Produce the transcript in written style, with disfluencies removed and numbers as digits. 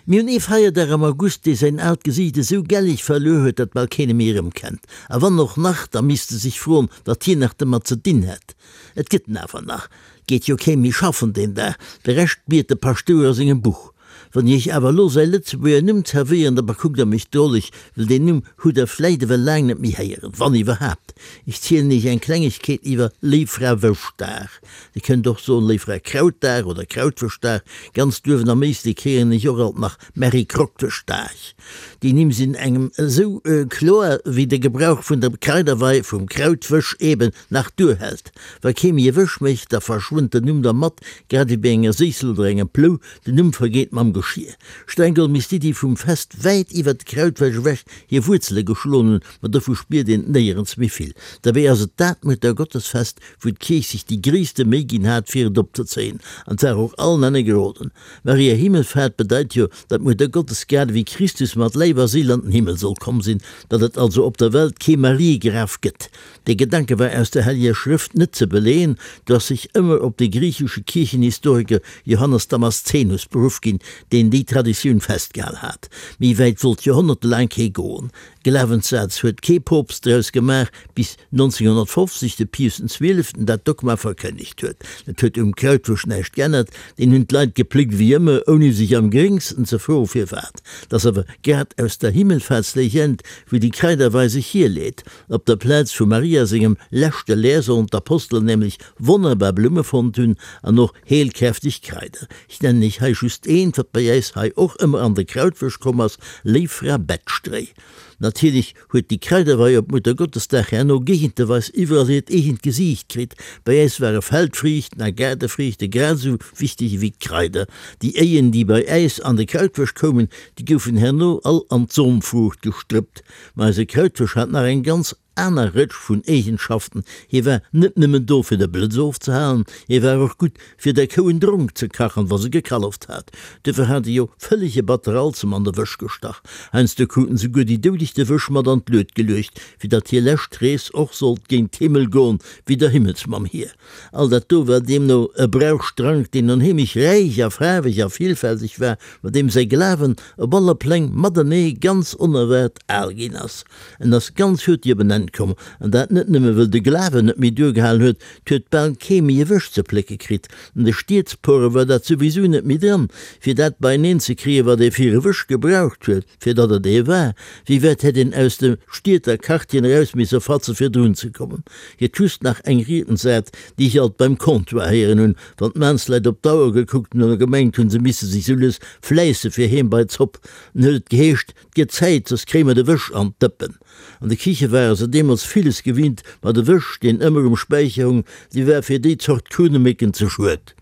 Mir hunn ee Feierdag am August, dee säin aalt Gesiicht esou gelleg verluer huet, datt bal keen e méi erëmkennt. A wann och nach, da misst e sech froen, wat hien nach domat ze dinn hätt. Et gëtt en awer nach. 't geet jo kee méi schaffen deen Dag, de Rescht biet de Paschtouer a sengem Buch. Wann ech iech awer elo säi Lëtzebuerger Numm zerwéieren, da bekuckt der mech droleg, well deen Numm hutt der vläit ewell laang net méi héieren, wann iwwerhaapt. Ech zielen iech eng Klengegkeet iwwer Léiffrawëschdag. Dir kënnt och soen Léiffrakrautdag oder Krautwëschdag. Ganz duerwen am Éislek héieren ech och alt nach Märikroktëschdag. Déi Nimm sinn engem esou kloer, wéi de Gebrauch vun der Kraiderwei, vum Krautwësch eben, nach duerhält. Wa kee méi e Wësch mécht, da verschwënnt den Numm dermat, grad ewéi bei enger Séissel oder engem Plou, den Numm vergeet mam Geschir. Streng geholl misst d'Iddi vum Fest wäit iwwer d'Krautwäsch ewech hir Wuerzele geschloen hunn, ma dovu spiert een néierens méi vill. Derbäi ass et dat Muttergottesfest, wou d'Kierch sech déi gréisste Méi ginn hat, fir et opzezéien, an 't war och allen Enne geroden. Maria Himmelfahrt bedeit jo, datt d'Muttergottes grad ewéi Christus mat Läif a Séil an den Himmel soll komm sinn, datt et also op der Welt kee Mariegraf gëtt. Dee Gedanke war aus der Helleger Schrëft net ze beleeën, do ass sech ëmmer op de griichesche Kierchenhistoriker Johannes Damaszenus beruff ginn, deen déi Traditioun festgehal hat. Méi wäit wollt joerhonnertelaang kee goen. Glawenssaz huet kee Poopst draus gemaach, bis 1950 de Pius den Zwieleften dat Dogma verkënnegt huet. Dat huet um Krautwurscht näischt geännert, deen hunn d'Leit gepléckt ewéi ëmmer, ouni sech am geréngsten ze froe firwat. 't ass awer grad aus der Himmelfahrtslegend, wou déi Kraiderwei sech hierleet. Op der Plaz vu Maria sengem leschte Leer sollen d'Apostelen nämlech wonnerbar Blumme fonnt hunn an och heelkräfteg Kraider. Ech nennen iech hei just eent, wat bei äis hei och ëmmer an de Krautwësch komm ass, Léif Fra Bettstréi. Natierlech huet déi Kraiderwei op Muttergottesdag herno géigenteweis iwwerall hiert eegent Gesiicht kritt. Bei äis ware Feldfriichten a Gaardefriichte grad esou wichteg ewéi d'Kraider. Déi Éien, déi bei äis an de Krautwësch koumen, déi goufen herno all an d'Somfruucht gestrëppt. Ma eise Krautwësch hat nach eng ganz aner Rëtsch vun Eegenschaften, Hie war net nëmmen do fir de Blëtz ofzehalen, hie war och gutt fir der Kou en Dronk ze kachen, wa se gekalleft hat. Duerfir hat e jo vëllege Batteralzem an de Wësch gestach. Heiansdo kruten souguer déi Doudeg de Wësch mat an d'Lued geluecht, fir datt hir lescht Rees och sollt géint d'Himmel goen, wéi der Himmelsmamm hir. All dat do war deemno e Brauchstrank, deen onheemlech räich a faarweg a villfälteg war, mat deem säi Glawen op alle Pläng matenee ganz onerwaart al ginn ass. En ass ganz hurti op en Enn komm, an dat net nëmme wëll de Glawen net méi duergehalen huet, 't huet bal kee méi e Wësch ze plécke kritt. An de Stiedspore war dat souwisou net méi dran, fir dat beieneen ze kréien, wat ee fir e Wësch gebraucht huet. Fir datt et ee war, wéi wäit hätt een aus de Stied a Quartieren eraus misse fatze fir drun ze kommen. Hiert just nach eng Riedensart, déi ech alt beim Comptoir héieren hunn, wann d'Maansleit op d'Auer gekuckt hunn oder gemengt hunn, se misse sech sou lues fläisse fir heem bei d'Zopp, dann huet et geheescht, 't gëtt Zäit, soss kréie mer de Wësch an d'Dëppen. An de Kiche ware se deemools villes gewinnt, ma de Wësch, deen ëmmer um Späicher hung, dee war fir déi Zort Krunnemécken ze schued.